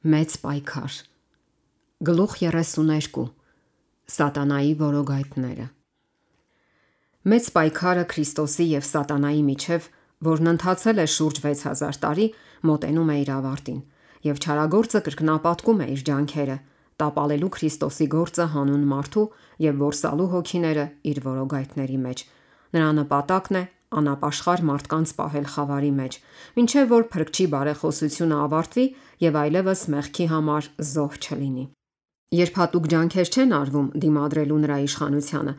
Մեծ պայքար։ Գլուխ 32. Սատանայի որոգայթները։ Մեծ պայքարը Քրիստոսի և Սատանայի միջև, որն ընթացել է շուրջ 6000 տարի, մոտենում է իր ավարտին, և չարագործը կրկնապատկում է իր ջանքերը՝ տապալելու Քրիստոսի գործը հանուն մարդու և որսալու հոգիները իր որոգայթների մեջ։ Նրա նպատակն է անապաշխար մարդկանց պահել խավարի մեջ, մինչև որ Փրկչի բարեխոսությունը ավարտվի և այլևս մեղքի համար զոհ չլինի։ Երբ հատուկ ջանքեր չեն արվում դիմադրելու նրա իշխանությանը,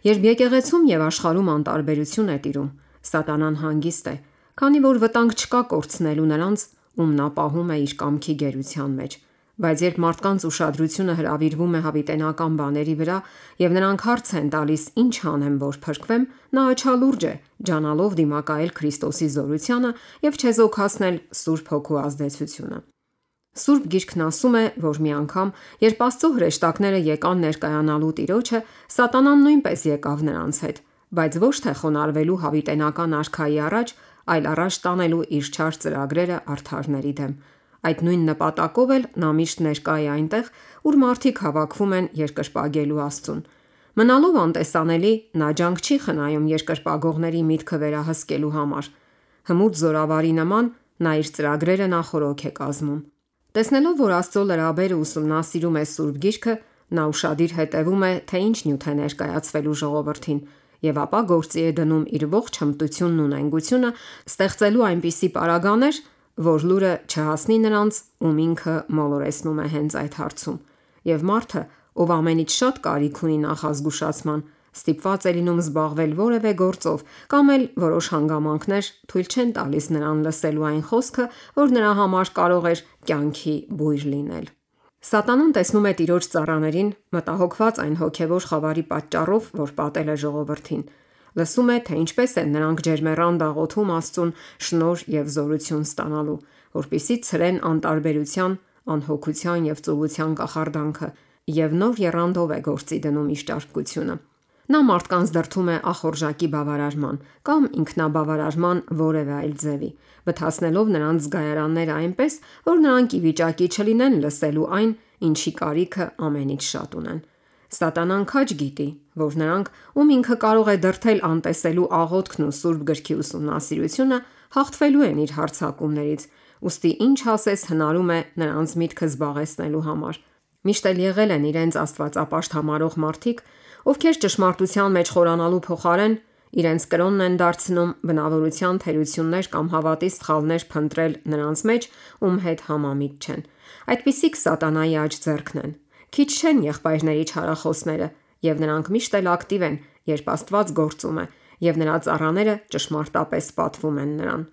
երբ եկեղեցում և աշխարհում անտարբերություն է տիրում, Սատանան հանգիստ է, քանի որ վտանգ չկա կորցնելու նրանց, ում նա պահում է իր կամքի գերության մեջ։ Բայց երբ մարդկանց ուշադրությունը հրավիրվում է հավիտենական բաների վրա, և նրանք հարց են տալիս ինչ անեմ, որ փրկվեմ, նա աչալուրջ է, ջանալով դիմակայել Քրիստոսի զորությանը և չեզոքացնել Սուրբ Հոգու ազդեցությունը։ Սուրբ Գիրքն ասում է, որ մի անգամ, երբ Աստծո հրեշտակները եկան ներկայանալու Տիրոջը, Սատանան նույնպես եկավ նրանց հետ, բայց ոչ թե խոնարհվելու հավիտենական արքայի առաջ, այլ առաջ տանելու իր չար ծրագրերը արդարների դեմ։ Այդ նույն նպատակով էլ նա միշտ ներկա է այնտեղ, ուր մարդիկ հավաքվում են երկրպագելու Աստծուն։ Մնալով անտեսանելի, նա ջանք չի խնայում երկրպագողների միտքը վերահսկելու համար։ Հմուտ զորավարի նման նա իր ծրագրերը նախօրոք է կազմում։ Տեսնելով, որ Աստծո լրաբերը ուսումնասիրում է Սուրբ Գիրքը, նա ուշադիր հետևում է, թե ինչ նյութ է ներկայացվելու ժողովրդին, և ապա գործի է դնում իր ողջ հմտությունն ու նենգությունը, ստեղծելու այնպիսի պարագաներ, որ լուրը չհասնի նրանց, ում ինքը մոլորեցնում է հենց այդ հարցում։ Եվ մարդը, ով ամենից շատ կարիք ունի նախազգուշացման, ստիպված է լինում զբաղվել որևէ գործով, կամ էլ որոշ հանգամանքներ թույլ չեն տալիս նրան լսելու այն խոսքը, որ նրա համար կարող էր կյանքի բույր լինել։ Սատանան տեսնում է Տիրոջ ծառաներին, մտահոգված այն հոգևոր խավարի պատճառով, որ պատել է ժողովրդին։ Լսում է, թե ինչպես են նրանք ջերմեռան դաղոթում Աստծուն շնորհ և զորություն ստանալու, որպեսզի ցրեն անտարբերության, անհոգության և ծուլության կախարդանքը, և նոր եռանդով է գործի դնում իր ճարպկությունը։ Նա մարդկանց դրդում է ախորժակի բավարարման կամ ինքնաբավարարման որևէ այլ ձևի, բթացնելով նրանց զգայարանները այնպես, որ նրանք ի վիճակի չլինեն լսելու այն, ինչի կարիքը ամենից շատ ունեն։ Սատանան քաջ գիտի, որ նրանք, ում ինքը կարող է դրդել անտեսելու աղոթքն ու Սուրբ Գրքի ուսումնասիրությունը, հաղթվելու են իր հարձակումներից, ուստի ինչ ասես հնարում է նրանց միտքը զբաղեցնելու համար։ Միշտ էլ եղել են իրենց աստվածապաշտ համարող մարդիկ, ովքեր ճշմարտության մեջ խորանալու փոխարեն իրենց կրոնն են դարձնում բնավորության թերություններ կամ հավատի սխալներ փնտրել նրանց մեջ, ում հետ համամիտ չեն։ Այդպիսիք Սատանայի աջ ձեռքն են։ Քիչ չեն եղբայրների չարախոսները, և նրանք միշտ էլ ակտիվ են, երբ Աստված գործում է, և նրա ծառաները ճշմարտապես պատվում են նրան։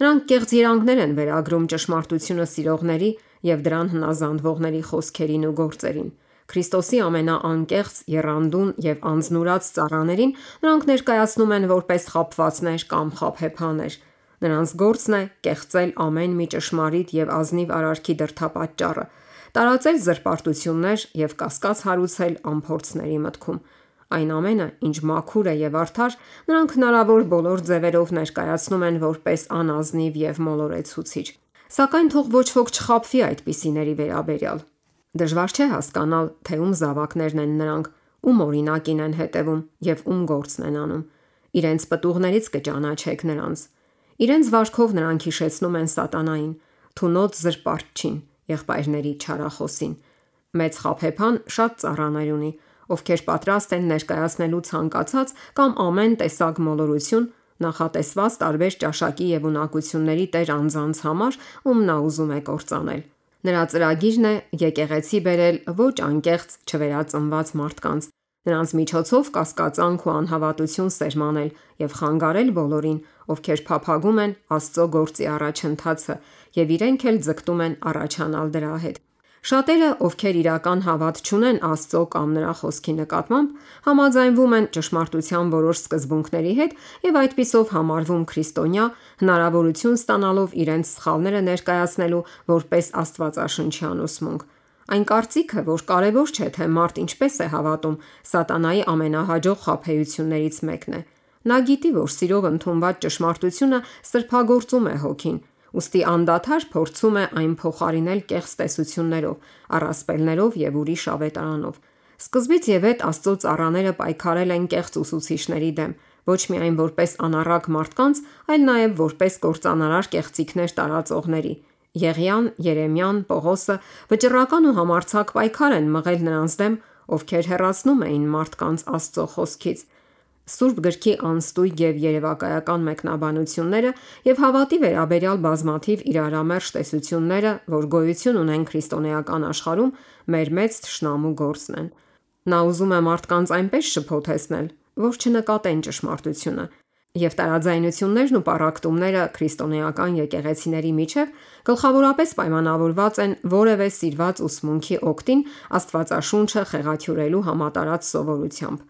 Նրանք կեղծ երանգներ են վերագրում ճշմարտությունը սիրողների և դրան հնազանդվողների խոսքերին ու գործերին։ Քրիստոսի ամենաանկեղծ, եռանդուն և անձնուրաց ծառաներին նրանք ներկայացնում են որպես խաբվածներ կամ խաբեբաներ։ Նրանց գործն է կեղծել ամեն մի ճշմարիտ և ազնիվ արարքի դրդապատճառը, տարածել զրպարտություններ և կասկած հարուցել անփորձների մտքում։ Այն ամենը, ինչ մաքուր է և արդար, նրանք հնարավոր բոլոր ձևերով ներկայացնում են որպես անազնիվ և մոլորեցուցիչ։ Սակայն թող ոչ ոք չխաբվի այդպիսիների վերաբերյալ։ Դժվար չէ հասկանալ, թե ում զավակներն են նրանք, ում օրինակին են հետևում և ում գործն են անում։ Իրենց պտուղներից կճանաչեք նրանց։ Իրենց վարքով նրանք հիշեցնում են Սատանային, թունոց զրպարտչին, եղբայրների չարախոսին։ Մեծ խաբեբան շատ ծառաներ ունի, ովքեր պատրաստ են ներկայացնելու ցանկացած կամ ամեն տեսակ մոլորություն, նախատեսված տարբեր ճաշակի և ունակությունների տեր անձանց համար, ում նա ուզում է կործանել։ Նրա ծրագիրն է եկեղեցի բերել ոչ անկեղծ չվերածնված մարդկանց, նրանց միջոցով կասկածանք ու անհավատություն սերմանել և խանգարել բոլորին, ովքեր փափագում են Աստծո գործի առաջընթացը և իրենք էլ ձգտում են առաջանալ դրա հետ։ Շատերը, ովքեր իրական հավատ չունեն Աստծո կամ նրա խոսքի նկատմամբ, համաձայնվում են ճշմարտության որոշ սկզբունքների հետ և այդպիսով համարվում քրիստոնյա, հնարավորություն ստանալով իրենց սխալները ներկայացնելու որպես աստվածաշնչյան ուսմունք։ Այն կարծիքը, որ կարևոր չէ, թե մարդ ինչպես է հավատում, Սատանայի ամենահաջող խաբեություններից մեկն է։ Նա գիտի, որ սիրով ընդունված ճշմարտությունը սրբագործում է հոգին, ուստի անդադար փորձում է այն փոխարինել կեղծ տեսություններով, առասպելներով եւ ուրիշ ավետարանով։ Սկզբից եւ հետ Աստծո ծառաները պայքարել են կեղծ ուսուցիչների դեմ, ոչ միայն որպես անառակ մարդկանց, այլ նաեւ որպես կործանարար կեղծիքներ տարածողների։ Եղիան, Երեմիան, Պողոսը վճռական ու համարձակ պայքար են մղել նրանց դեմ, ովքեր հեռացնում էին մարդկանց Աստծո խոսքից։ Սուրբ գրքի անստույգ եւ երևակայական մեկնաբանությունները եւ հավատի վերաբերյալ բազմաթիվ իրարամերժ տեսությունները, որ գոյություն ունեն քրիստոնեական աշխարհում, մեր մեծ թշնամու գործն են։ Նա ուզում է մարդկանց այնպես շփոթեցնել, որ չնկատեն ճշմարտությունը, եւ տարաձայնություններն ու պառակտումները քրիստոնեական եկեղեցիների միջև գլխավորապես պայմանավորված են որևէ սիրված ուսմունքի օգտին Աստվածաշունչը խեղաթյուրելու համատարած սովորությամբ։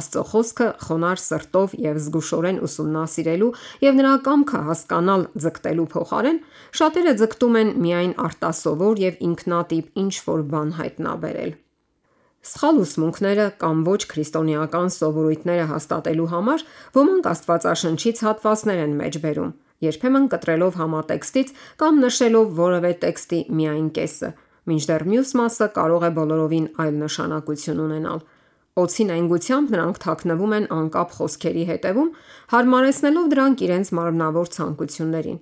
Աստծո խոսքը խոնարհ սրտով եւ զգուշորեն ուսումնասիրելու եւ նրա կամքը հասկանալ ձգտելու փոխարեն շատերը ձգտում են միայն արտասովոր եւ ինքնատիպ ինչ-որ բան հայտնաբերել։ Սխալ ուսմունքները կամ ոչ քրիստոնեական սովորույթները հաստատելու համար ոմանք Աստվածաշնչից հատվածներ են մեջ բերում, երբեմն կտրելով համատեքստից կամ նշելով որևէ տեքստի միայն կեսը, մինչդեռ մյուս մասը կարող է բոլորովին այլ նշանակություն ունենալ։ Օձի նենգությամբ նրանք թաքնվում են անկապ խոսքերի հետևում, հարմարեցնելով դրանք իրենց մարմնավոր ցանկություններին։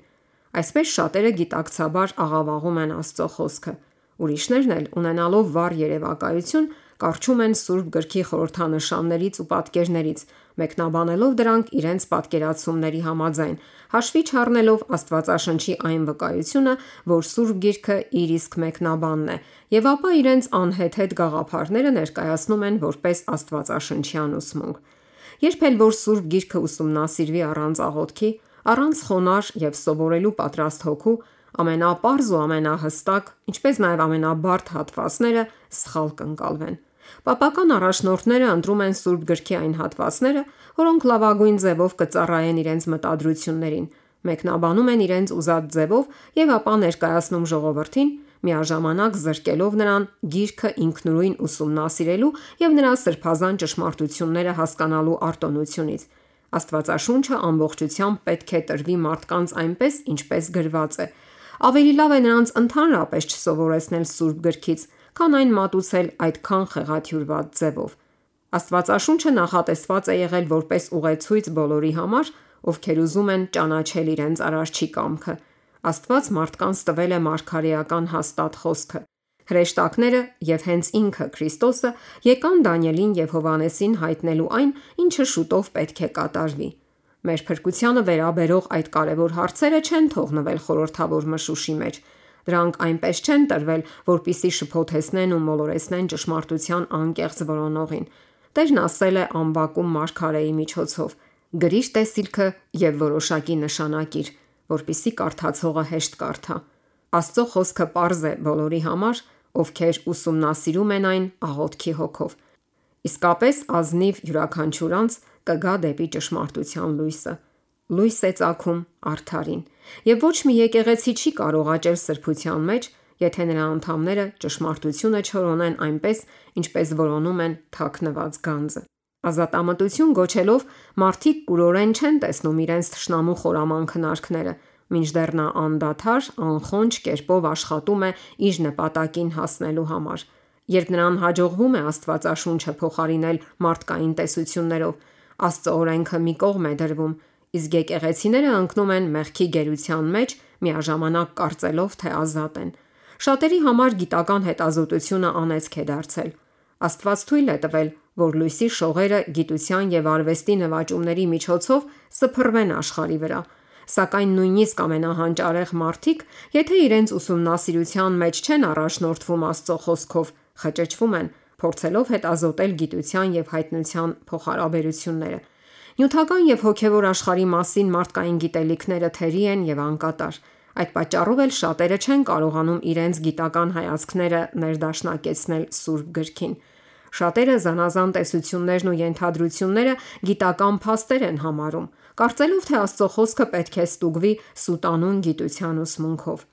Այսպես շատերը գիտակցաբար աղավաղում են Աստծո խոսքը։ Ուրիշներն էլ, ունենալով վառ երևակայություն, կարճում են Սուրբ գրքի խորհրդանշաններից ու պատկերներից, մեկնաբանելով դրանք իրենց պատկերացումների համաձայն, հաշվի չառնելով Աստվածաշնչի այն վկայությունը, որ Սուրբ գիրքը իր իսկ մեկնաբանն է, եւ ապա իրենց անհեթեթ գաղափարները ներկայացնում են որպես աստվածաշնչյան ուսմունք։ Երբ էլ որ Սուրբ գիրքը ուսումնասիրվի առանց աղոթքի, առանց խոնարհ եւ սովորելու պատրաստ հոգու, ամենապարզ ու ամենահստակ, ինչպես նաեւ ամենաբարդ հատվածները սխալ կընկալվեն։ Պապական առաջնորդները ընտրում են Սուրբ գրքի այն հատվածները, որոնք լավագույն ձևով կծառայեն իրենց մտադրություններին, մեկնաբանում են իրենց ուզած ձևով եւ ապա ներկայացնում ժողովրդին, միաժամանակ զրկելով նրան գիրքը ինքնուրույն ուսումնասիրելու եւ նրա սրբազան ճշմարտությունները հասկանալու արտոնությունից։ Աստվածաշունչը ամբողջությամբ պետք է տրվի մարդկանց այնպես, ինչպես գրված է։ Ավելի լավ է նրանց ընդհանրապես չսովորեցնել Սուրբ գրքից, քան այն մատուցել այդքան խեղաթյուրված ձևով։ Աստվածաշունչը նախատեսված է եղել որպես ուղեցույց բոլորի համար, ովքեր ուզում են ճանաչել իրենց Արարչի կամքը։ Աստված մարդկանց տվել է մարգարեական հաստատ խոսքը։ Հրեշտակները եւ հենց ինքը Քրիստոսը եկան Դանիելին եւ Հովանեսին հայտնելու այն, ինչը շուտով պետք է կատարվի։ Մեր փրկությանը վերաբերող այդ կարևոր հարցերը չեն թողնվել խորհրդավոր մշուշի մեջ։ Դրանք այնպես չեն տրվել, որպիսի շփոթեցնեն ու մոլորեցնեն ճշմարտության անկեղծ որոնողին։ Տերն ասել է անբակում մարգարեի միջոցով. «Գրիր տեսիլքը եւ որոշակի նշանակիր, որպիսի կարդացողը հեշտ կարդա»։ Աստծո խոսքը պարզ է բոլորի համար, ովքեր ուսումնասիրում են այն աղոթքի հոգով։ Իսկապես ազնիվ յուրաքանչյուր անձ կգա դեպի ճշմարտության լույսը։ Լույս է ծագում արդարին, եւ ոչ մի եկեղեցի չի կարող աճել սրբության մեջ, եթե նրա անդամները ճշմարտությունը չորոնեն այնպես, ինչպես որոնում են թաքնված գանձը։ Ազատամտություն գոչելով մարդիկ կուրորեն չեն տեսնում իրենց թշնամու խորաման քնարքները, մինչդեռ նա անդադար, անխոնջ կերպով աշխատում է իր նպատակին հասնելու համար։ Երբ նրան հաջողվում է Աստվածաշունչը փոխարինել մարդկային տեսություններով, Աստծո օրենքը մի կողմ է դրվում, իսկ եկեղեցիները ընկնում են մեղքի գերության մեջ, միաժամանակ կարծելով, թե ազատ են։ Շատերի համար գիտական հետազոտությունը անեծք է դարձել։ Աստված թույլ է տվել, որ լույսի շողերը գիտության եւ արվեստի նվաճումների միջոցով սփռվեն աշխարհի վրա, սակայն նույնիսկ ամենահանճարեղ մարդիկ, եթե իրենց ուսումնասիրության մեջ չեն առաջնորդվում Աստծո խոսքով, խճճվում են, փորձելով հետազոտել գիտության եւ հայտնության փոխհարաբերությունները։ Նյութական եւ հոգեվոր աշխարհի մասին մարդկային գիտելիքները թերի են եւ անկատար։ Այդ պատճառով էլ շատերը չեն կարողանում իրենց գիտական հայացքները ներդաշնակեցնել Սուրբ գրքին։ Շատերը զանազան տեսություններն ու ենթադրությունները գիտական փաստեր են համարում, կարծելով, թե Աստծո խոսքը պետք է ստուգվի սուտանուն գիտության ուսմունքով։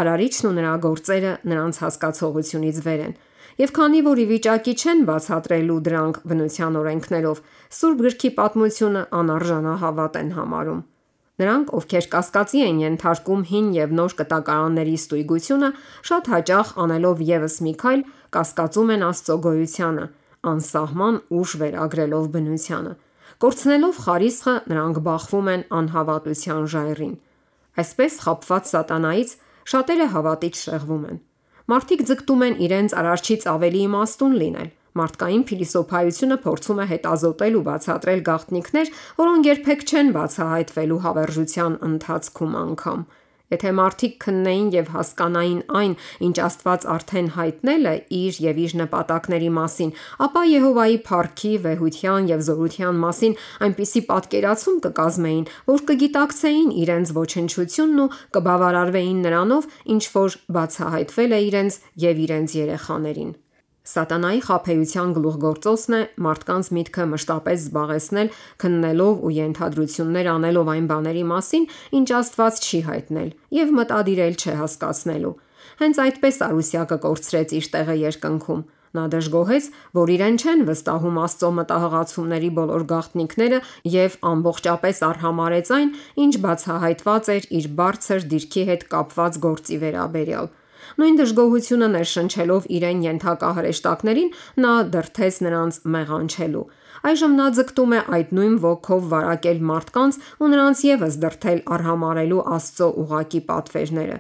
Արարիչն ու նրա գործերը նրանց հասկացողությունից վեր են, եւ քանի որ ի վիճակի չեն բացատրելու դրանք բնության օրենքներով, Սուրբ գրքի պատմությունը անարժանահավատ են համարում։ Նրանք, ովքեր կասկածի են ենթարկում հին եւ նոր կտակարանների ստույգությունը, շատ հաճախ անելով եւս մի քայլ, կասկածում են Աստծո գոյությանը, անսահման ուժ վերագրելով բնությանը։ Կորցնելով խարիսխը, նրանք բախվում են անհավատության ժայռին։ Այսպես խաբված սատանայից շատերը հավատից շեղվում են։ Մարդիկ ձգտում են իրենց արարչից ավելի իմաստուն լինել։ Մարդկային փիլիսոփայությունը փորձում է հետազոտել ու բացատրել գաղտնիքներ, որոնք երբեք չեն բացահայտվելու հավերժության ընթացքում անգամ։ Եթե մարդիկ քննեին եւ հասկանային այն, ինչ Աստված արդեն հայտնել է իր եւ իր նպատակների մասին, ապա Եհովայի փառքի, վեհության եւ զորության մասին այնպիսի պատկերացում կկազմեին, որ կգիտակցեին իրենց ոչնչությունն ու կբավարարվեին նրանով, ինչ որ բացահայտվել է իրենց եւ իրենց երեխաներին։ Սատանայի խաբեության գլուխգործոցն է մարդկանց միտքը մշտապես զբաղեցնել քննելով ու ենթադրություններ անելով այն բաների մասին, ինչ Աստված չի հայտնել եւ մտադիրել չհասկացնելու։ Հենց այդպես Արուսյակը կորցրեց իր տեղը երկնքում։ Նա դժգոհեց, որ իրեն չեն վստահում Աստծո մտահղացումների բոլոր գաղտնիքները եւ ամբողջապես արհամարհեց այն, ինչ բացահայտված էր իր բարձր դիրքի հետ կապված գործի վերաբերյալ։ Նույն դժգոհությունը ներշնչելով իրեն ենթակա հրեշտակներին, նա դրդեց նրանց մեղանչելու։ Այժմ նա ձգտում է այդ նույն ոգով վարակել մարդկանց ու նրանց եւս դրդել արհամարհելու Աստծո ուղակի պատվերները։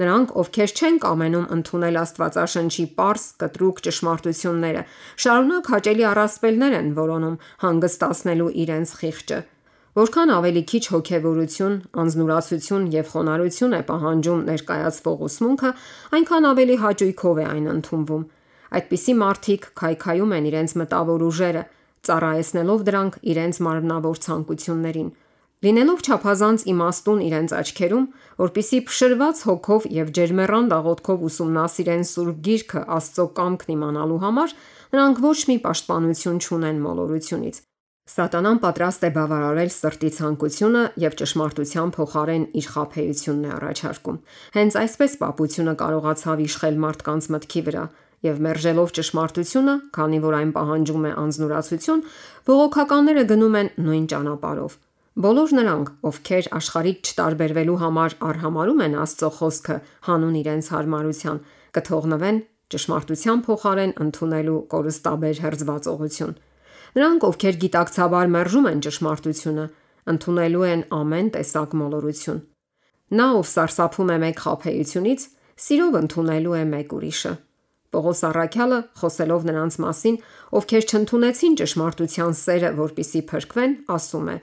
Նրանք, ովքեր չեն կամենում ընդունել Աստվածաշնչի պարզ, կտրուկ ճշմարտությունները, շարունակ հաճելի առասպելներ են որոնում հանգստացնելու իրենց խիղճը։ Որքան ավելի քիչ հոգևորություն, անձնուրացություն եւ խոնարհություն է պահանջում ներկայացվող ուսմունքը, այնքան ավելի հաճույքով է այն ընդունվում։ Այդպիսի մարդիկ քայքայում են իրենց մտավոր ուժերը, ծառայեցնելով դրանք իրենց մարմնավոր ցանկություններին։ Լինելով չափազանց իմաստուն իրենց աչքերում, որpիսի փշրված հոգով եւ ջերմեռան աղոթքով ուսումնասիրեն Սուրբ Գիրքը Աստծո կամքն իմանալու համար, նրանք ոչ մի պաշտպանություն չունեն մոլորությունից։ Սատանան պատրաստ է բավարարել սրտի ցանկությունը եւ ճշմարտության փոխարեն իր խաբեությունն է առաջարկում։ Հենց այսպես պապությունը կարողացավ իշխել մարդկանց մտքի վրա եւ մերժելով ճշմարտությունը, քանի որ այն պահանջում է անձնուրացություն, բողոքականները գնում են նույն ճանապարհով։ Բոլոր նրանք, ովքեր աշխարհից չտարբերվելու համար արհամարհում են Աստծո խոսքը հանուն իրենց հարմարության, կթողնվեն ճշմարտության փոխարեն ընդունելու կորստաբեր հերձվածողություն։ Նրանք, ովքեր գիտակցաբար մերժում են ճշմարտությունը, ընդունելու են ամեն տեսակ մոլորություն։ Նա, ով սարսափում է մեկ խաբեությունից, սիրով ընդունելու է մեկ ուրիշը։ Պողոս առաքյալը, խոսելով նրանց մասին, ովքեր չընդունեցին ճշմարտության սերը, որպիսի փրկվեն, ասում է.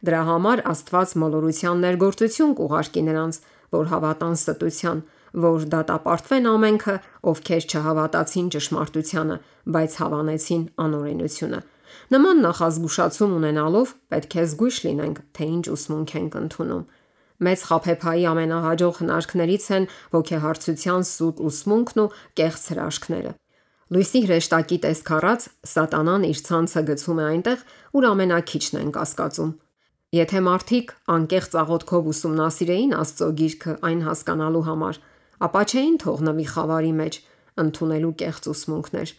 Դրա համար Աստված մոլորության ներգործություն կուղարկի նրանց, որ հավատան ստության, որ դատապարտվեն ամենքը, ովքեր չհավատացին ճշմարտությանը, բայց հավանեցին անօրենությունը։ Նման նախազգուշացում ունենալով պետք է զգույշ լինենք, թե ինչ ուսմունք ենք ընդունում։ Մեծ խաբեբայի ամենահաջող հնարքներից են ոգեհարցության սուտ ուսմունքն ու կեղծ հրաշքները։ Լույսի հրեշտակի տեսք առած սատանան իր ցանցը գցում է այնտեղ, ուր ամենաքիչն են կասկածում։ Եթե մարդիկ անկեղծ աղոթքով ուսումնասիրեին Աստծո Գիրքը այն հասկանալու համար, ապա չէին թողնվի խավարի մեջ ընդունելու կեղծ ուսմունքներ,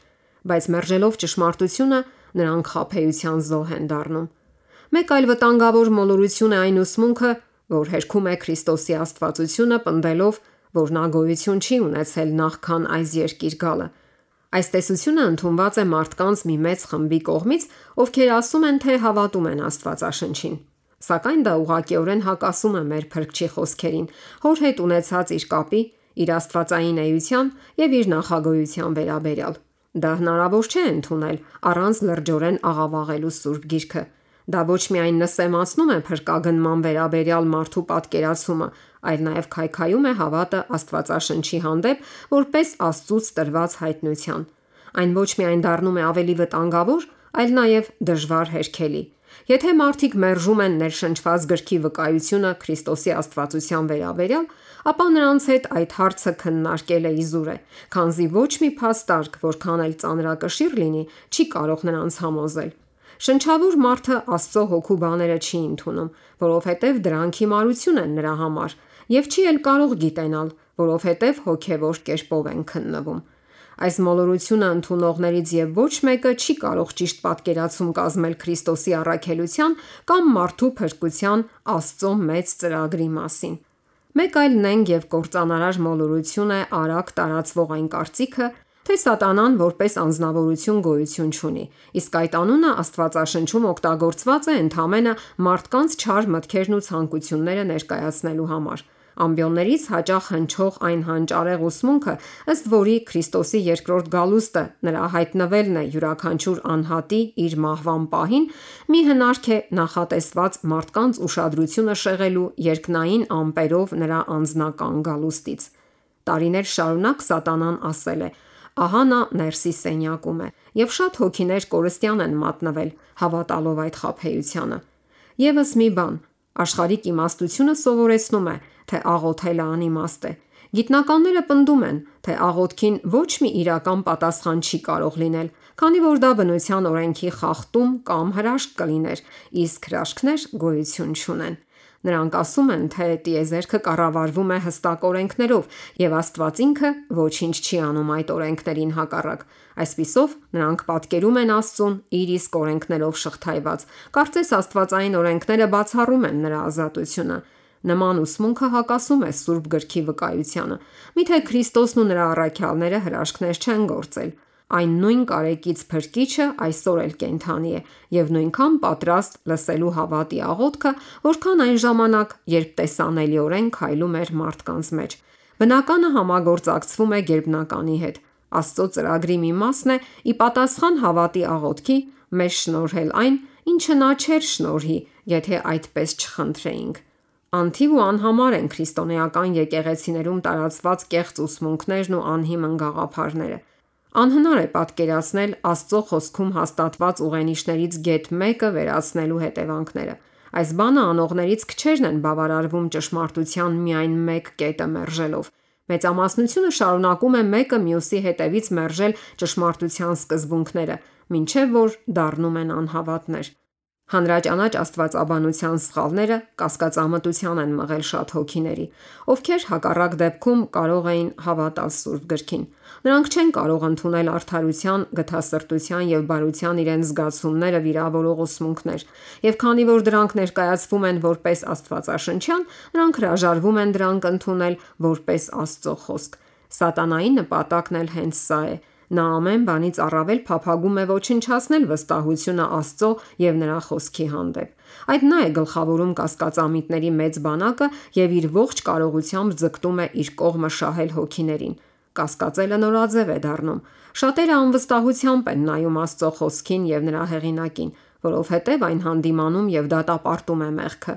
բայց մերժելով ճշմարտությունը, նրանք խաբեության զոհ են դառնում։ Մեկ այլ վտանգավոր մոլորություն է այն ուսմունքը, որ հերքում է Քրիստոսի աստվածությունը, պնդելով, որ նա գոյություն չի ունեցել նախքան այս երկիր գալը։ Այս տեսությունը ընդունված է մարդկանց մի մեծ խմբի կողմից, ովքեր ասում են, թե հավատում են Աստվածաշնչին։ Սակայն դա ուղղակիորեն հակասում է մեր Փրկչի խոսքերին, հոր հետ ունեցած իր կապի, իր աստվածային էության եւ իր նախագոյության վերաբերյալ։ Դա հնարավոր չէ ընդունել առանց լրջորեն աղավաղելու Սուրբ Գիրքը։ Դա ոչ միայն նսեմացնում է փրկագնման վերաբերյալ մարդու պատկերացումը, այլ նաև քայքայում է հավատը Աստվածաշնչի հանդեպ որպես Աստծուց տրված հայտնության։ Այն ոչ միայն դառնում է ավելի վտանգավոր, այլ նաև դժվար հերքելի։ Եթե մարդիկ մերժում են ներշնչված գրքի վկայությունը Քրիստոսի աստվածության վերաբերյալ, ապա նրանց հետ այդ հարցը քննարկելը իզուր է, քանզի ոչ մի փաստարկ, որքան էլ ծանրակշիռ լինի, չի կարող նրանց համոզել։ Շնչավոր մարդը Աստծո հոգու բաները չի ընդունում, որովհետև դրանք հիմարություն են նրա համար, եւ չի էլ կարող գիտենալ, որովհետև հոգևոր կերպով են քննվում։ Այս մոլորությունը ընդունողներից եւ ոչ մեկը չի կարող ճիշտ պատկերացում կազմել Քրիստոսի առաքելության կամ մարդու փրկության Աստծո մեծ ծրագրի մասին։ Մեկ այլ նենգ եւ կործանարար մոլորություն է արագ տարածվող այն կարծիքը, թե Սատանան որպես անձնավորություն գոյություն չունի, իսկ այդ անունը Աստվածաշնչում օգտագործված է ընդամենը մարդկանց չար մտքերն ու ցանկությունները ներկայացնելու համար։ Ամբիոններից հաճախ հնչող այն հանճարեղ ուսմունքը, ըստ որի Քրիստոսի երկրորդ գալուստը նրա հայտնվելն է յուրաքանչյուր անհատի իր մահվան պահին, մի հնարք է նախատեսված մարդկանց ուշադրությունը շեղելու երկնային ամպերով նրա անձնական գալուստից։ Տարիներ շարունակ Սատանան ասել է. ահա նա ներսի սենյակում է, եւ շատ հոգիներ կորստյան են մատնվել, հավատալով այդ խաբեությանը։ Եվս մի բան, աշխարհիկ իմաստությունը սովորեցնում է, թե աղոթելը անիմաստ է։ Գիտնականները պնդում են, թե աղոթքին ոչ մի իրական պատասխան չի կարող լինել, քանի որ դա բնության օրենքի խախտում կամ հրաշք կլիներ, իսկ հրաշքներ գոյություն չունեն։ Նրանք ասում են, թե տիեզերքը կառավարվում է հստակ օրենքներով, եւ Աստված ինքը ոչինչ չի անում այդ օրենքներին հակառակ։ Այսպիսով, նրանք պատկերում են Աստծուն իր իսկ օրենքներով շղթայված։ Կարծես աստվածային օրենքները բացառում են նրա ազատությունը։ Նման ուսմունքը հակասում է Սուրբ գրքի վկայությանը։ Միթե Քրիստոսն ու նրա առաքյալները հրաշքներ չեն գործել։ Այն նույն կարեկից Փրկիչը այսօր էլ կենդանի է եւ նույնքան պատրաստ լսելու հավատի աղոթքը, որքան այն ժամանակ, երբ տեսանելիորեն քայլում էր մարդկանց մեջ։ Բնականը համագործակցվում է գերբնականի հետ։ Աստծո ծրագրի մի մասն է ի պատասխան հավատի աղոթքի մեզ շնորհել այն, ինչը նա չէր շնորհի, եթե այդպես չխնդրեինք։ Անթիվ ու անհամար են քրիստոնեական եկեղեցիներում տարածված կեղծ ուսմունքներն ու անհիմն գաղափարները։ Անհնար է պատկերացնել Աստծո խոսքում հաստատված ուղենիշներից գեթ մեկը վերացնելու հետևանքները։ Այս բանը անողներից քչերն են բավարարվում ճշմարտության միայն մեկ կետը մերժելով։ Մեծամասնությունը շարունակում է մեկը մյուսի հետևից մերժել ճշմարտության սկզբունքները, մինչև որ դառնում են անհավատներ։ Հանրաճանաչ աստվածաբանության սխալները կասկածամտության են մղել շատ հոգիների, ովքեր հակառակ դեպքում կարող էին հավատալ Սուրբ գրքին։ Նրանք չեն կարող ընդունել արդարության, գթասրտության եւ բարության իրենց զգացումները վիրավորող ուսմունքներ, եւ քանի որ դրանք ներկայացվում են որպես աստվածաշնչյան, նրանք հրաժարվում են դրանք ընդունել որպես Աստծո խոսք։ Սատանայի նպատակն էլ հենց սա է։ Նա ամեն բանից առավել փափագում է ոչնչացնել վստահությունը Աստծո եւ նրա խոսքի հանդեպ։ Այդ նա է գլխավորում կասկածամիտների մեծ բանակը եւ իր ողջ կարողությամբ ձգտում է իր կողմը շահել հոգիներին։ Կասկածելը նորաձև է դառնում։ Շատերը անվստահությամբ են նայում Աստծո խոսքին եւ նրա հեղինակին, որովհետեւ այն հանդիմանում եւ դատապարտում է մեղքը։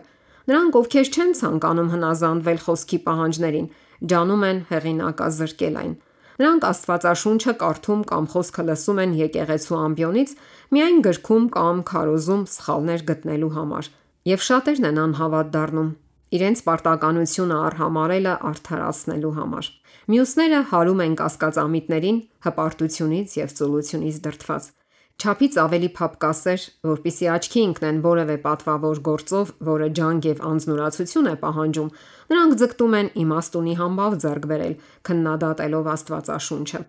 Նրանք, ովքեր չեն ցանկանում հնազանդվել խոսքի պահանջներին, ջանում են հեղինակազրկել այն։ Նրանք Աստվածաշունչը կարդում կամ խոսքը լսում են եկեղեցու ամբիոնից միայն գրքում կամ քարոզում սխալներ գտնելու համար, եւ շատերն են անհավատ դառնում իրենց պարտականությունը արհամարելը արդարացնելու համար։ Մյուսները հարում են կասկածամիտներին հպարտությունից եւ ծուլությունից դրդված։ Չափից ավելի փափկասեր, որպիսի աչքի ընկնեն որևէ պատվավոր գործով, որը ջանք եւ անձնուրացություն է պահանջում, նրանք ձգտում են իմաստունի համբավ ձեռք բերել, քննադատելով Աստվածաշունչը։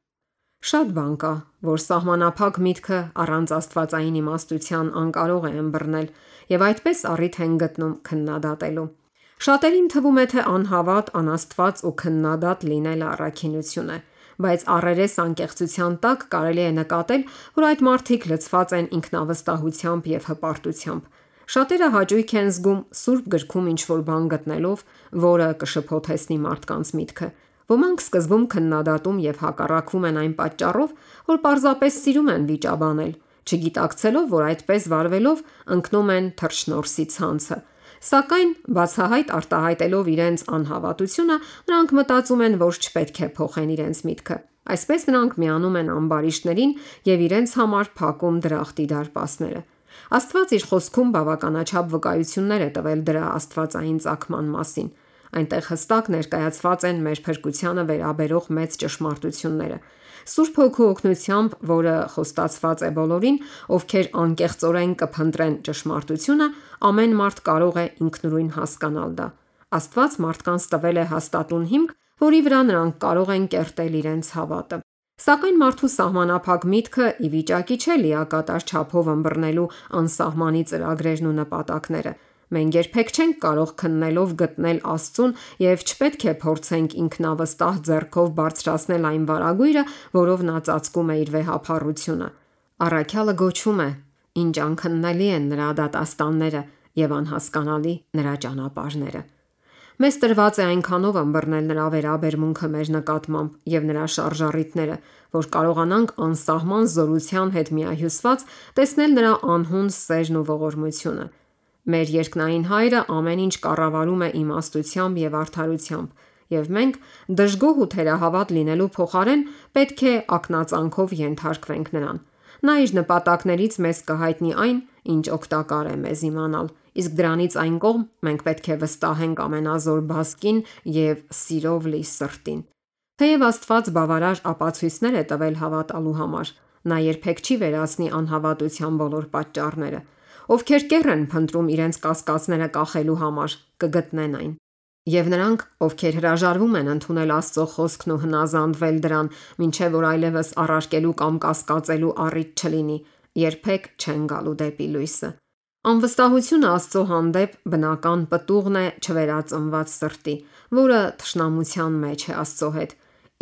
Շատ բան կա, որ սահմանափակ միտքը առանց աստվածային իմաստության անկարող է ըմբռնել, եւ այդպես առիթ են գտնում քննադատելու։ Շատերին թվում է, թե անհավատ, անաստված ու քննադատ լինելը առաքինություն է, բայց առերես անկեղծության տակ կարելի է նկատել, որ այդ մարդիկ լցված են ինքնավստահությամբ եւ հպարտությամբ։ Շատերը հաճույք են զգում Սուրբ գրքում ինչ-որ բան գտնելով, որը կշփոթեցնի մարդկանց միտքը։ Ոմանք սկզբում քննադատում եւ հակառակվում են այն պատճառով, որ պարզապես սիրում են վիճաբանել, չգիտակցելով, որ այդպես վարվելով ընկնում են թռչնորսի ցանցը։ Սակայն բացահայտ արտահայտելով իրենց անհավատությունը, նրանք մտածում են, որ չպետք է փոխեն իրենց միտքը։ Այսպես նրանք միանում են ամբարիշտներին եւ իրենց համար փակում դրախտի դարպասները։ Աստված իր խոսքում բավականաչափ վկայություններ է տվել դրա աստվածային ծագման մասին։ Այնտեղ հստակ ներկայացված են մեր փրկությանը վերաբերող մեծ ճշմարտությունները։ Սուրբ Հոգու օգնությամբ, որը խոստացված է բոլորին, ովքեր անկեղծորեն կփնտրեն ճշմարտությունը, ամեն մարդ կարող է ինքնուրույն հասկանալ դա։ Աստված մարդկանց տվել է հաստատուն հիմք, որի վրա նրանք կարող են կերտել իրենց հավատը։ Սակայն մարդու սահմանափակ միտքը ի վիճակի չէ լիակատար չափով ըմբռնելու անսահմանի ծրագրերն ու նպատակները։ Մենք երբեք չենք կարող քննելով գտնել Աստծուն եւ չպետք է փորձենք ինքնավստահ ձեռքով բարձրացնել այն վարագույրը, որով նա ծածկում է իր վեհափառությունը։ Առաքյալը գոչում է. «Ինչ անքննելի են նրա դատաստանները եւ անհասկանալի նրա ճանապարհները»։ Մեզ տրված է այնքանով ըմբռնել նրա վերաբերմունքը մեր նկատմամբ եւ նրա շարժառիթները, որ կարողանանք անսահման զորության հետ միահյուսված տեսնել նրա անհուն սերն ու ողորմությունը։ Մեր երկնային Հայրը ամեն ինչ կառավարում է իմաստությամբ եւ արդարությամբ, եւ մենք դժգոհ ու թերահավատ լինելու փոխարեն պետք է ակնածանքով ենթարկվենք նրան։ Նա իր նպատակներից մեզ կհայտնի այն, ինչ օգտակար է մեզ իմանալ, իսկ դրանից այն կողմ մենք պետք է վստահենք ամենազոր բազկին եւ սիրով լի սրտին։ Թեև Աստված բավարար ապացույցներ է տվել հավատալու համար, նա երբեք չի վերացնի անհավատության բոլոր պատճառները։ Ովքեր կեռ են փնտրում իրենց կասկածները կախելու համար, կգտնեն այն։ Եվ նրանք, ովքեր հրաժարվում են ընդունել Աստծո խոսքն ու հնազանդվել դրան, մինչև որ այլևս առարկելու կամ կասկածելու առիթ չլինի, երբեք չեն գալու դեպի լույսը։ Անվստահությունը Աստծո հանդեպ բնական պտուղն է չվերածնված սրտի, որը թշնամության մեջ է Աստծո հետ,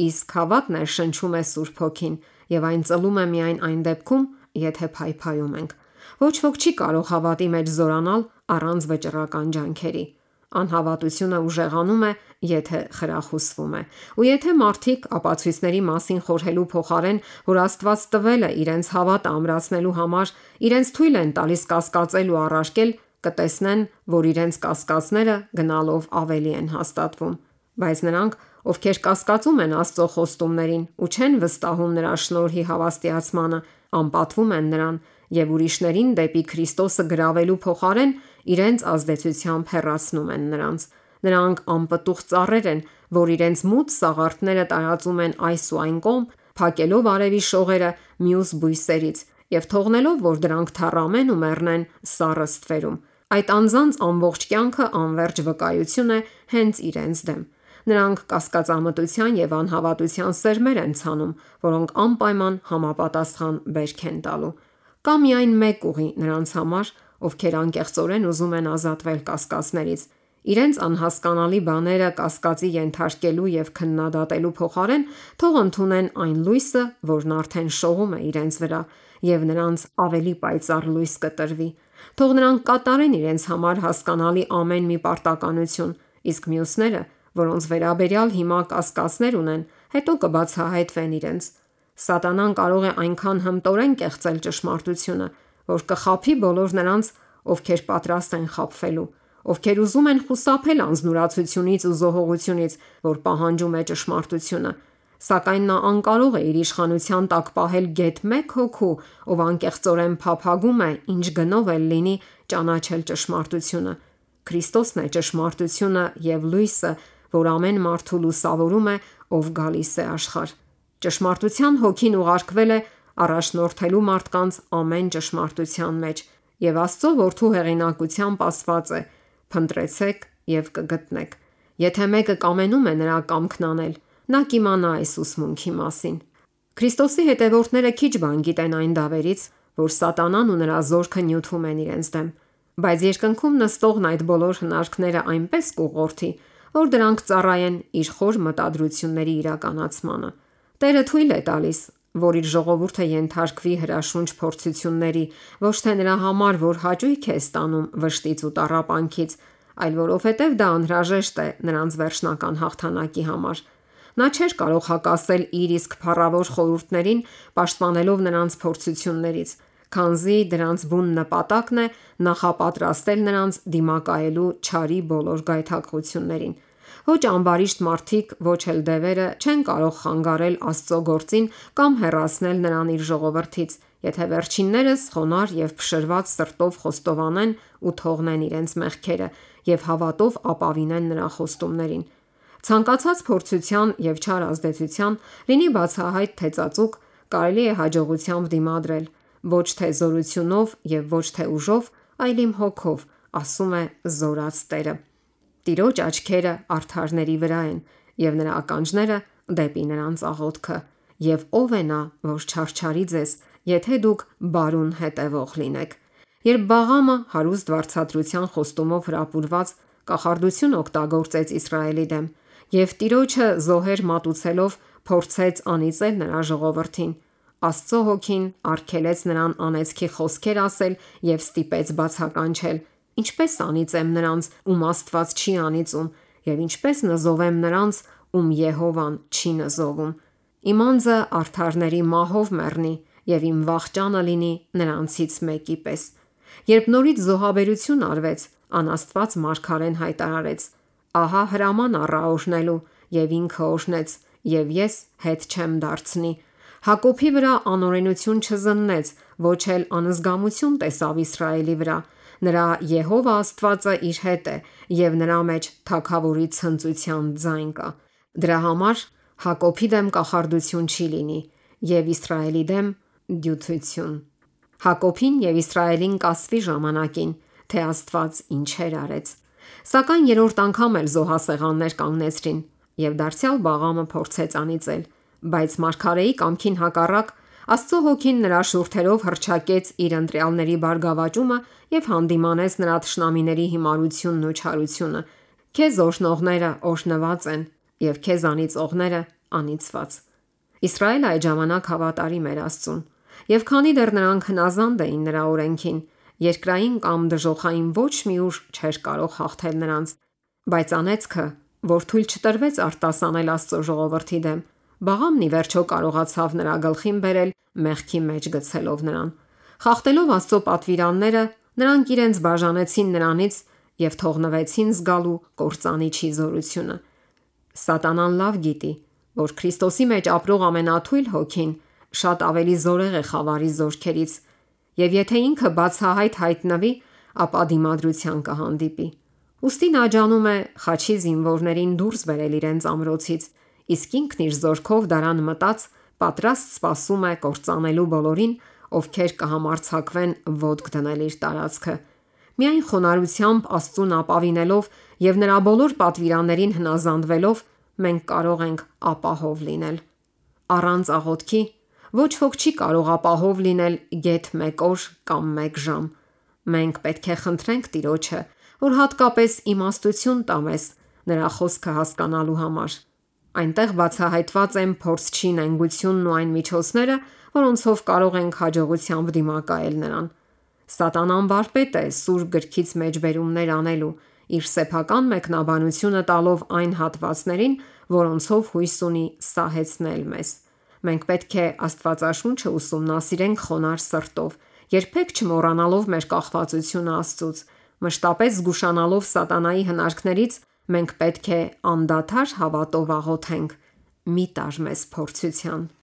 իսկ հավատն շնչում է Սուրբ Հոգին, եւ այն ծլում է միայն այն դեպքում, եթե փայփայում ենք։ Ոչ ոք չի կարող հավատի մեջ զորանալ առանց վճռական ջանքերի։ Անհավատությունը ուժեղանում է, եթե խրախուսվում է։ Ու եթե մարդիկ ապացույցների մասին խորհելու փոխարեն, որ Աստված տվել է իրենց հավատը ամրացնելու համար, իրենց թույլ են տալիս կասկածել ու առարկել, կտեսնեն, որ իրենց կասկածները գնալով ավելի են հաստատվում։ Բայց նրանք, ովքեր կասկածում են Աստծո խոստումներին ու չեն վստահում նրա շնորհի հավաստիացմանը, անպատվում են նրան եւ ուրիշներին դեպի Քրիստոսը գրավելու փոխարեն իրենց ազդեցությամբ հեռացնում են նրանց։ Նրանք անպտուղ ծառեր են, որ իրենց մութ սաղարթները տարածում են այս ու այն կողմ, փակելով արևի շողերը մյուս բույսերից եւ թողնելով, որ դրանք թառամեն ու մեռնեն սառը ստվերում։ Այդ անձանց ամբողջ կյանքը անվերջ վկայություն է հենց իրենց դեմ։ Նրանք կասկածամտության եւ անհավատության սերմեր են ցանում, որոնք անպայման համապատասխան բերք են տալու։ Կա միայն մեկ ուղի նրանց համար, ովքեր անկեղծորեն ուզում են ազատվել կասկածներից։ Իրենց անհասկանալի բաները կասկածի ենթարկելու եւ քննադատելու փոխարեն թող ընդունեն այն լույսը, որն արդեն շողում է իրենց վրա, եւ նրանց ավելի պայծառ լույս կտրվի։ Թող նրանք կատարեն իրենց համար հասկանալի ամեն մի պարտականություն, իսկ մյուսները, որոնց վերաբերյալ հիմա կասկածներ ունեն, հետո կբացահայտվեն իրենց։ Սատանան կարող է այնքան հմտորեն կեղծել ճշմարտությունը, որ կխաբի բոլոր նրանց, ովքեր պատրաստ են խաբվելու, ովքեր ուզում են խուսափել անձնուրացությունից ու զոհողությունից, որ պահանջում է ճշմարտությունը։ Սակայն նա անկարող է իր իշխանության տակ պահել գեթ մեկ հոգու, ով անկեղծորեն փափագում է, ինչ գնով էլ լինի, ճանաչել ճշմարտությունը։ Քրիստոսն է ճշմարտությունը եւ լույսը, որ ամեն մարդու լուսավորում է, ով գալիս է աշխարհ։ Ճշմարտության հոգին ուղարկվել է առաջնորդելու մարդկանց ամեն ճշմարտության մեջ, եւ Աստծո որդու հեղինակությամբ ասված է. «Փնտրեցեք եւ կգտնեք»։ Եթե մեկը կամենում է նրա կամքն անել, նա կիմանա այս ուսմունքի մասին։ Քրիստոսի հետևորդները քիչ բան գիտեն այն դավերից, որ Սատանան ու նրա զորքը նյութում են իրենց դեմ, բայց երկնքում նստողն այդ բոլոր հնարքները այնպես կուղղորդի, որ դրանք ծառայեն իր խոր մտադրությունների իրականացմանը։ Տերը թույլ է տալիս, որ իր ժողովուրդը ենթարկվի հրաշունչ փորձությունների, ոչ թե նրա համար, որ հաճույք է ստանում վշտից ու տառապանքից, այլ որովհետև դա անհրաժեշտ է նրանց վերջնական հաղթանակի համար։ Նա չէր կարող հակասել իր իսկ փառավոր խորհուրդներին, պաշտպանելով նրանց փորձություններից, քանզի դրանց բուն նպատակն է նախապատրաստել նրանց դիմակայելու չարի բոլոր գայթակղություններին։ Ոչ ամբարիշտ մարդիկ, ոչ էլ դևերը չեն կարող խանգարել Աստծո գործին կամ հեռացնել նրան իր ժողովրդից, եթե վերջիններս խոնարհ եւ փշրված սրտով խոստովանեն ու թողնեն իրենց մեղքերը եւ հավատով ապավինեն նրա խոստումներին։ Ցանկացած փորձության եւ չար ազդեցության, լինի բացահայտ թե ծածուկ, կարելի է հաջողությամբ դիմադրել, ոչ թե զորությունով եւ ոչ թե ուժով, այլ իմ հոգով, ասում է զորած Տերը։ Տիրոջ աչքերը արդարների վրա են եւ նրա ականջները դեպի նրանց աղոթքը։ եւ ով է նա, որ չարչարի ձեզ, եթե դուք բարուն հետևող լինեք։ Երբ Բաղամը հարուստ վարձատրության խոստումով հրապուրված կախարդություն օգտագործեց Իսրայելի դեմ եւ Տիրոջը զոհեր մատուցելով փորձեց անիծել նրա ժողովրդին, Աստծո հոգին արգելեց նրան անեծքի խոսքեր ասել եւ ստիպեց բացականչել. Ինչպես անիծեմ նրանց, ում Աստված չի անիծում, եւ ինչպես նզովեմ նրանց, ում Եհովան չի նզովում։ Իմ անձը արդարների մահով մեռնի եւ իմ վախճանը լինի նրանցից մեկի պես։ Երբ նորից զոհաբերություն արվեց, անաստված մարգարեն հայտարարեց. ահա հրաման առա օրհնելու, եւ ինքը օրհնեց, եւ ես հետ չեմ դարձնի։ Հակոբի վրա անօրենություն չզննեց, ոչ էլ անզգամություն տեսավ Իսրայելի վրա։ Նրա Եհովա Աստվածը իր հետ է, եւ նրա մեջ թագավորի ցնծության ձայն կա։ Դրա համար Հակոբի դեմ կախարդություն չի լինի, եւ Իսրայելի դեմ դյութություն։ Հակոբին եւ Իսրայելին կասվի ժամանակին, թե Աստված ինչեր արեց։ Սակայն երրորդ անգամ էլ զոհասեղաններ կանգնեցրին, եւ դարձյալ Բաղամը փորձեց անիծել, բայց մարգարեի կամքին հակառակ Աստծո հոգին նրա շուրթերով հռչակեց իր ընտրյալների բարգավաճումը եւ հանդիմանեց նրա թշնամիների հիմարությունն ու չարությունը։ Քեզ օրհնողները օրհնված են եւ քեզ անիծողները անիծված։ Իսրայելը այդ ժամանակ հավատարիմ էր Աստծուն, եւ քանի դեռ նրանք հնազանդ էին նրա օրենքին, երկրային կամ դժոխային ոչ մի ուժ չէր կարող հաղթել նրանց, բայց անեծքը, որ թույլ չտրվեց արտասանել Աստծո ժողովրդի դեմ, Բաղամն ի վերջո կարողացավ նրա գլխին բերել մեղքի մեջ գցելով նրան։ Խախտելով Աստծո պատվիրանները, նրանք իրենց բաժանեցին նրանից եւ թողնվեցին զգալու կործանիչի զորությունը։ Սատանան լավ գիտի, որ Քրիստոսի մեջ ապրող ամենաթույլ հոգին շատ ավելի զորեղ է խավարի զորքերից, եւ եթե ինքը բացահայտ հայտնվի, ապա դիմադրության կհանդիպի։ Ուստի նա ջանում է խաչի զինվորներին դուրս բերել իրենց ամրոցից, իսկ ինքն իր զորքով դարան մտած պատրաստ սպասում է կործանելու բոլորին, ովքեր կհամարձակվեն ոտք դնել իր տարածքը։ Միայն խոնարհությամբ Աստծուն ապավինելով եւ նրա բոլոր պատվիրաններին հնազանդվելով մենք կարող ենք ապահով լինել։ Առանց աղոթքի ոչ ոք չի կարող ապահով լինել գեթ 1 օր կամ 1 ժամ։ Մենք պետք է խնդրենք Տիրոջը, որ հատկապես իմաստություն տա մեզ նրա խոսքը հասկանալու համար։ Այնտեղ բացահայտված են փորձչի նենգությունն ու այն միջոցները, որոնցով կարող ենք հաջողությամբ դիմակայել նրան։ Սատանան վարպետ է սուրբ գրքից մեջբերումներ անելու, իր սեփական մեկնաբանությունը տալով այն հատվածներին, որոնցով հույս ունի սահեցնել մեզ։ Մենք պետք է Աստվածաշունչը ուսումնասիրենք խոնարհ սրտով, երբեք չմոռանալով մեր կախվածությունը Աստծուց, մշտապես զգուշանալով սատանայի հնարքներից, մենք պետք է անդադար հավատով աղոթենք. մի տար մեզ փորձության։